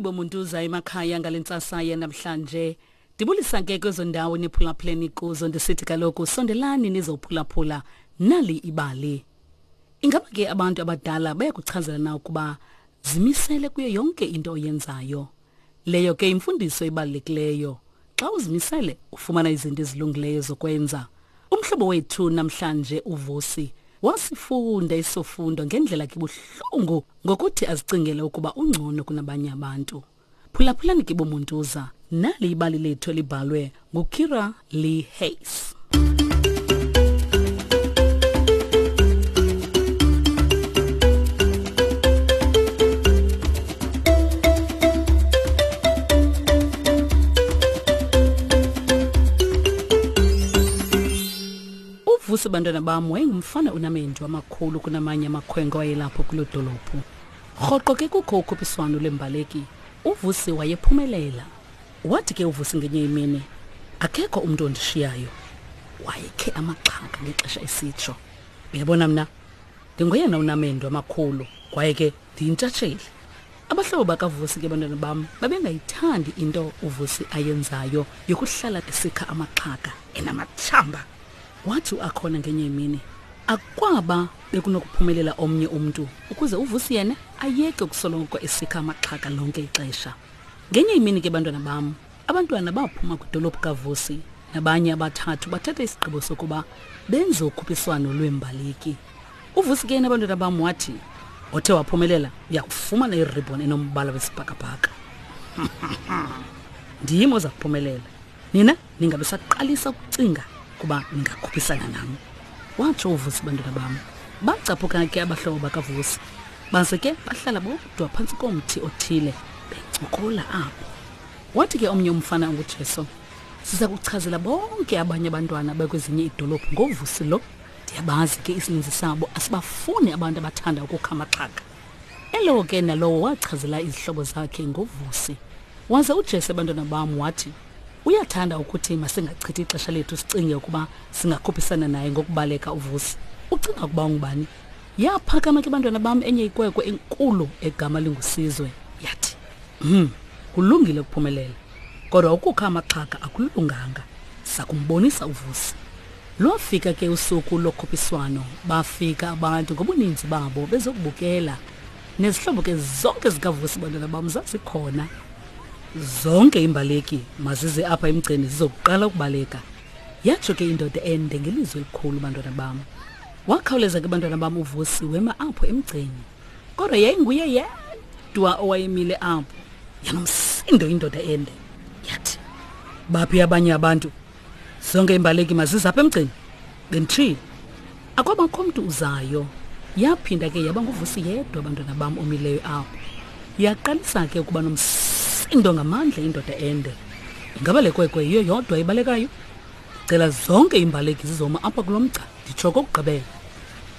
Molweni bomuntuza emakhaya ngale ntsasa yanamhlanje. Ndibulisa ke kwezo ndawo niphulaphuleni kuzo ndisithi kaloku sondelani nizophulaphula nali ibali. Ingaba ke abantu abadala bayakuchazela na ukuba zimisele kuyo yonke into oyenzayo? Leyo ke imfundiso ebalulekileyo. Xa uzimisele ufumana izinto ezilungileyo zokwenza. Umhlobo wethu namhlanje uVusi wasifunda isofundo ngendlela kibuhlungu ngokuthi azicingele ukuba ungcono kunabanye abantu. Phulaphulani ke bomuntuza, nali ibali lethu elibhalwe nguKira Lee Hayes. Uvusi bantwana bam wayengumfana onamendu amakhulu kunamanye amakhwenkwe ayelapho kuloo dolophu. Rhoqo ke kukho ukhuphiswano lwembaleki, uVusi wayephumelela. Wathi ke uVusi ngenye imini, akekho umntu ondishiyayo. Wayekhe amaxhaka ngexesha esitsho. Uyabona mna, ndingoyena unamendu amakhulu kwaye ke ndiyintshatsheli. Abahlobo bakaVusi ke bantwana bam babengayithandi into uVusi ayenzayo yokuhlala esikha amaxhaka enamatshamba. Wathi uAkhona ngenye imini, akwaba bekunokuphumelela omnye umntu ukuze uVusi yena ayeke ukusoloko esikha amaxhaka lonke ixesha. Ngenye imini ke bantwana bam, abantwana baphuma kwidolophu kaVusi nabanye abathathu bathatha isigqibo sokuba benze ukhuphiswano lweembaleki. UVusi ke yena bantwana bam wathi othe waphumelela uyakufumana iribhoni enombala wesibhakabhaka. Ndim oza kuphumelela. Nina ningabe saqalisa ukucinga kuba ningakhuphisana nam. Watsho uVusi bantwana bam. Bacaphuka ke abahlobo bakaVusi. Baze ke bahlala bodwa phantsi komthi othile bencokola apho. Wathi ke omnye umfana onguJesu, siza kuchazela bonke abanye abantwana bakwezinye iidolophu ngoVusi lo. Ndiyabazi ke isininzi sabo asibafuni abantu abathanda ukukha amaxhaka. Elowo ke nalowo wachazela izihlobo zakhe ngoVusi. Waze uJese bantwana bam wathi uyathanda ukuthi masingachithi ixesha lethu sicinge ukuba singakhuphisana naye ngokubaleka uVusi. Ucinga ukuba ungubani? Yaphakama ke bantwana bam enye ikwekwe enkulu egama linguSizwe yathi, "Hmm, kulungile ukuphumelela. Kodwa ukukha amaxhaka akulunganga. Sakumbonisa uVusi." Lwafika ke usuku lokhuphiswano, bafika abantu ngobuninzi babo bezokubukela. Nezihlobo ke zonke zikaVusi bantwana bam zazikhona. Zonke iimbaleki mazize apha emgceni zizokuqala ukubaleka. Yatsho ke indoda ende ngelizwi elikhulu bantwana bam. Wakhawuleza ke bantwana bam uVusi wema apho emgceni. Kodwa yayinguye yedwa owayemile apho. Yanomsindo indoda ende. Yathi, baphi abanye abantu? Zonke iimbaleki mazize apha emgceni. Benditshilo. Akwabakho mntu uzayo. Yaphinda ke yaba nguVusi yedwa abantwana bam omileyo apho. Yaqalisa ke ukuba nomsindo ngamandla indoda ende. Ingaba le kwekwe yiyo yodwa ibalekayo? Cela zonke iimbaleki zizoma apha kulo mgca nditsho okokugqibela.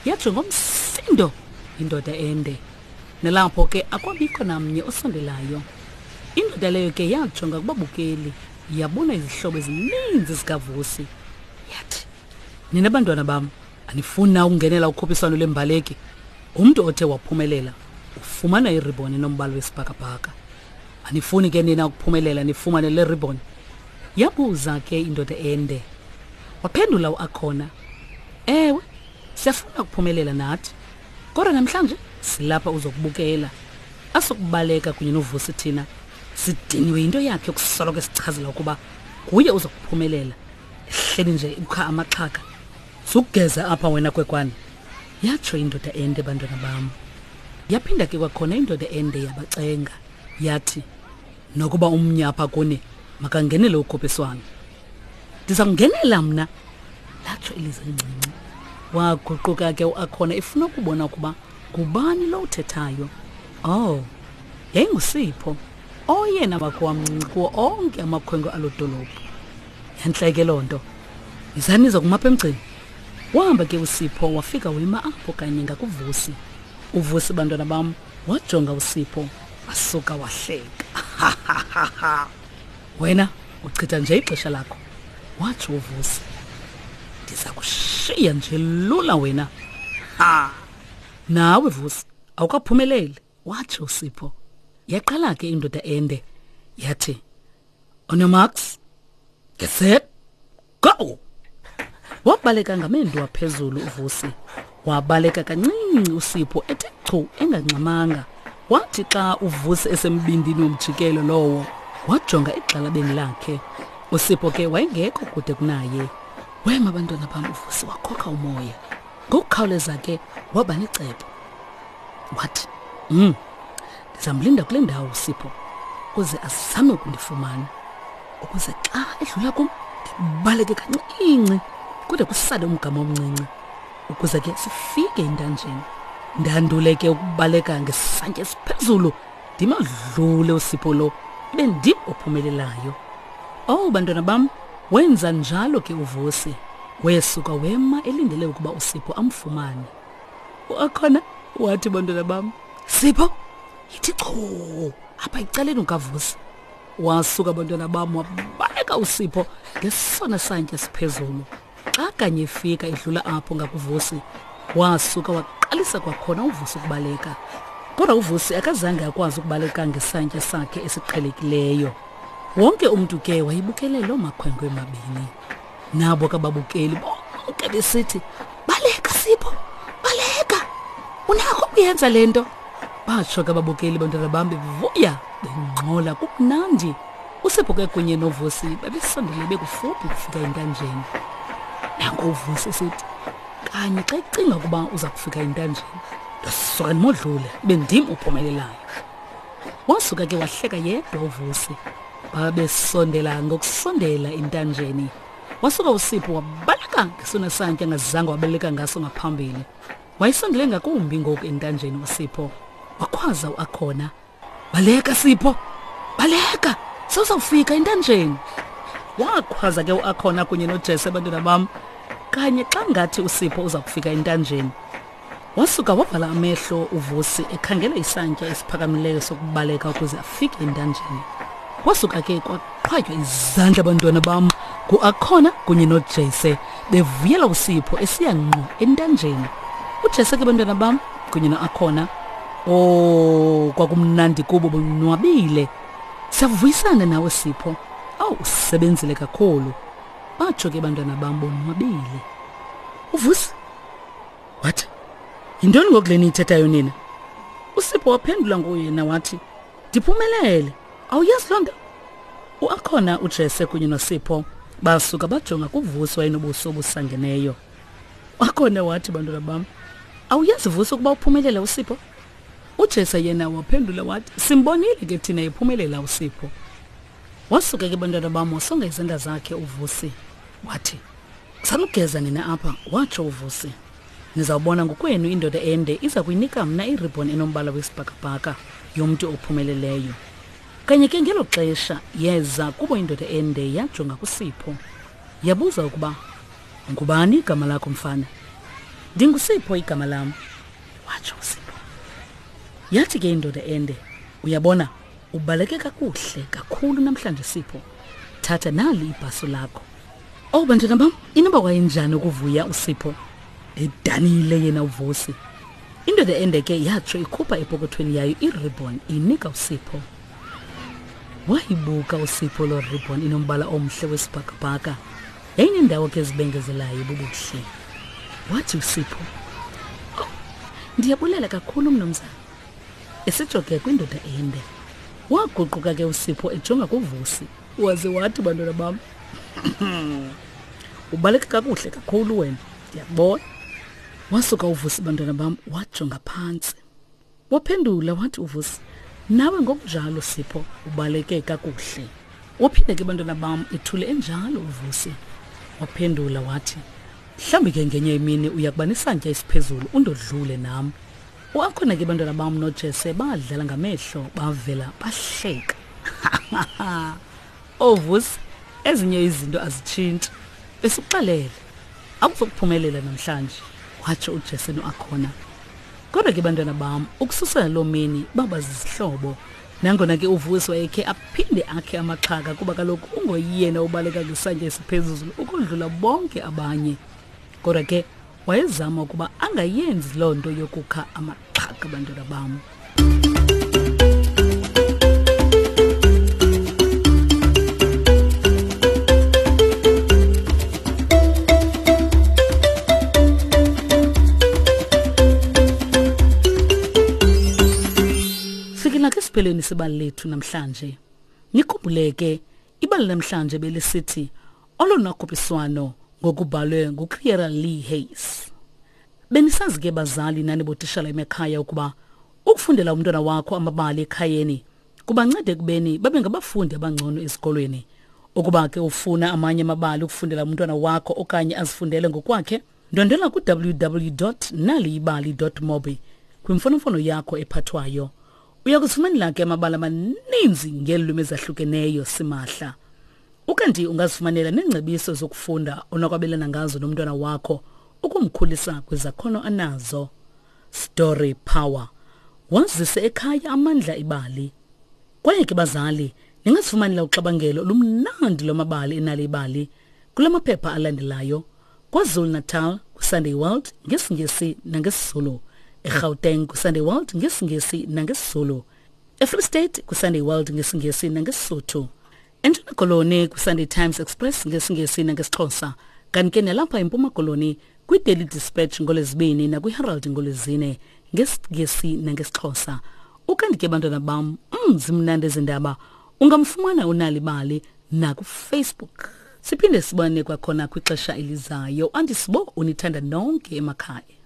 Yatsho ngomsindo indoda ende. Nalapho ke akwabikho namnye osondelayo. Indoda leyo ke yajonga kubabukeli yabona izihlobo ezininzi zikaVusi. Yathi, Nina bantwana bam, anifuni na ukungenela ukhuphiswano lwembaleki? Umntu othe waphumelela ufumana iribhoni enombala wesibhakabhaka. Anifuni ke nina ukuphumelela nifumane le ribhoni? Yabuza ke indoda ende. Waphendula uAkhona, Ewe, siyafuna ukuphumelela nathi. Kodwa namhlanje silapha uzokubukela. Asokubaleka kunye noVusi thina. Sidiniwe yinto yakhe yokusoloko esichazela ukuba nguye uzokuphumelela. Ehleli nje ukha amaxhaka. Sukugeza apha wena kwekwane. Yatsho indoda ende bantwana bam. Yaphinda ke kwakhona indoda ende yabacenga. Yathi, nokuba umnye apha kuni makangenele ukhuphiswano. Ndiza kungenela mna, latsho ilizwi elincinci. Waguquka ke uAkhona efuna ukubona ukuba ngubani lo uthethayo. Oh, yayinguSipho, oyena wakho wamncinci kuwo onke amakhwenkwe aloo dolophu. Yantle ke loo nto. Yizani niza kumapha emgceni. Wahamba ke uSipho wafika wema apho kanye ngakuVusi. UVusi bantwana bam wajonga uSipho wasuka wahleka. Wena uchitha nje ixesha lakho, watsho uVusi. Ndiza kushiya nje lula wena. Ha! Nawe Vusi awukaphumeleli, watsho uSipho. Yaqala ke indoda ende yathi, "On your marks, get set, go!" Wabaleka ngamendu aphezulu uVusi. Wabaleka kancinci uSipho ethe chu engangxamanga. Wathi xa uVusi esembindini womjikelo lowo, wajonga egxalabeni lakhe. USipho ke wayengekho kude kunaye. Wema abantwana bam uVusi wakhokha umoya. Ngokukhawuleza ke waba necebo. Wathi, "Mm. Ndizamlinda kule ndawo uSipho ukuze azame ukundifumana. Ukuze xa edlula kum ndibaleke kancinci kude kusale umgama omncinci ukuze ke sifike entanjeni. Ndandule ke ukubaleka ngesantya esiphezulu ndimadlule uSipho lo ibe ndim ophumelelayo. Oh bantwana bam, wenza njalo ke uVusi. Wesuka wema elindele ukuba uSipho amfumane. Uakhona wathi bantwana bam, Sipho, yithi chu apha ecaleni ukaVusi. Wasuka bantwana bam wabaleka uSipho ngesona santya siphezulu. Xa kanye efika edlula apho ngakuVusi, wasuka waqalisa kwakhona uVusi ukubaleka. Kodwa uVusi akazange akwazi ukubaleka ngesantya sakhe esiqhelekileyo. Wonke umntu ke wayebukele loo makhwenkwe mabini. Nabo kababukeli bonke besithi, baleka Sipho, baleka, unakho ukuyenza le nto. Batsho ke ababukeli bantwana bam bevuya bengxola kumnandi. USipho ke kunye noVusi babesondele bekufuphi ukufika entanjeni. Nanko uVusi esithi, kanye xa ecinga ukuba uza kufika entanjeni, ndasuka ndimodlule ibe ndim ophumelelayo. Wasuka ke wahleka yedwa uVusi. Babesondela ngokusondela entanjeni. Wasuka uSipho wabaleka ngesona santya angazange wabaleka ngaso ngaphambili. Wayesondele ngakumbi ngoku entanjeni uSipho. Wakhwaza uAkhona. Baleka Sipho! Baleka! Sewuzawufika entanjeni. Wakhwaza ke uAkhona kunye noJesse abantwana bam. Kanye xa ngathi uSipho uza kufika entanjeni. Wasuka wavala amehlo uVusi ekhangela isantya esiphakamileyo sokubaleka ukuze afike entanjeni. Wasuka ke kwaqhwatywa izandla abantwana bam nguAkhona kunye noJese bevuyela uSipho esiya ngqo entanjeni. UJese ke bantwana bam kunye noAkhona Oh, kwakumnandi kubo bonwabile. Siyavuyisana nawe Sipho. Awu usebenzile kakhulu. Batsho ke bantwana bam bonwabile. UVusi wathi, "Yintoni ngoku le niyithethayo nina?" USipho waphendula ngoyena wathi, "Ndiphumelele. Awuyazi loo nto?" UAkhona uJese kunye noSipho basuka bajonga kuVusi wayenobuso obusangeneyo. Wakhona wathi, bantwana bam, awuyazi Vusi ukuba uphumelele uSipho? UJese yena waphendula wathi, simbonile ke thina ephumelela uSipho. Wasuka ke bantwana bam wasonga izandla zakhe uVusi wathi, sanugeza nina apha, watsho uVusi. Nizawubona ngokwenu indoda ende iza kuyinika mna iribhon enombala wesibhakabhaka yomntu ophumeleleyo. Kanye ke ngelo xesha yeza kubo indoda ende yajonga kuSipho. Yabuza ukuba ngubani igama lakho mfana? Ndingusipho igama lam, watsho uSipho. Yathi ke indoda ende, uyabona ubaleke kakuhle kakhulu namhlanje Sipho. Thatha nali ibhaso lakho. Oh bantwana bam, inoba wayenjani ukuvuya uSipho? Edanile yena uVusi. Indoda ende ke yatsho ikhupha epokothweni yayo iribhon inika uSipho. Wayibuka uSipho loo ribhon inombala omhle wesibhakabhaka. Yayinendawo ke ezibengezelayo bubuhle. Wathi uSipho, "Oh, ndiyabulela kakhulu mnumzana." Esitsho ke kwindoda ende. Waguquka ke uSipho ejonga kuVusi. Waze wathi bantwana bam, "Ubaleka kakuhle kakhulu wena, ndiyakubona." Wasuka uVusi bantwana bam wajonga phantsi. Waphendula wathi uVusi, nawe ngokunjalo Sipho ubaleke kakuhle. Waphinda ke bantwana bam ethule enjalo uVusi. Waphendula wathi, mhlawumbi ke ngenye imini uya kuba nesantya esiphezulu undodlule nam. Uakhona ke bantwana bam noJese badlala ngamehlo bavela bahleka. OVusi, ezinye izinto azitshintshi. Besikuxelele, akuzokuphumelela namhlanje, watsho uJese noAkhona. Kodwa ke bantwana bam, ukususela loo mini baba zizihlobo. Nangona ke uVusi wayekhe aphinde akhe amaxhaka kuba kaloku ungoyena ubaleka ngesantya esiphezulu ukodlula bonke abanye. Kodwa ke wayezama ukuba angayenzi loo nto yokukha amaxhaka bantwana bam. Sifikela ke siphelweni sebali lethu namhlanje. Nikhumbule ke ibali namhlanje belisithi olona khuphiswano ngokubhalwe nguCiara Lee Hayes. Benisazi ke bazali nani botishala emakhaya ukuba ukufundela umntwana wakho amabali ekhayeni kubanceda ekubeni babe ngabafundi abangcono ezikolweni. Ukuba ke ufuna amanye amabali ukufundela umntwana wakho okanye azifundele ngokwakhe, ndwendwela ku-www.naliyibali.mobi kwimfonomfono yakho ephathwayo. Uya kuzifumanela ke amabali amaninzi ngeelwimi ezahlukeneyo simahla. Ukanti ungazifumanela neengcebiso zokufunda onokwabelana ngazo nomntwana wakho ukumkhulisa kwizakhono anazo. Story Power. Wazise ekhaya amandla ibali. Kwaye ke bazali, ningazifumanela uxabangelo olumnandi lwamabali enali ibali kula maphepha alandelayo. KwaZulu-Natal kwiSunday World ngesiNgesi nangesiZulu. EGauteng kwiSunday World ngesiNgesi nangesiZulu. EFree State kwiSunday World ngesiNgesi nangeSisotho. ENtshona Koloni kwiSunday Times Express ngesiNgesi nangesiXhosa. Kanti ke nalapha eMpuma Koloni kwiDaily Dispatch ngoLwezibini nakwiHerald ngoLwezine ngesiNgesi nangesiXhosa. Ukanti ke bantwana bam, zimnandi ezi ndaba. Ungamfumana uNalibali nakuFacebook. Siphinde sibone kwakhona kwixesha elizayo. Andisibo unithanda nonke emakhaya.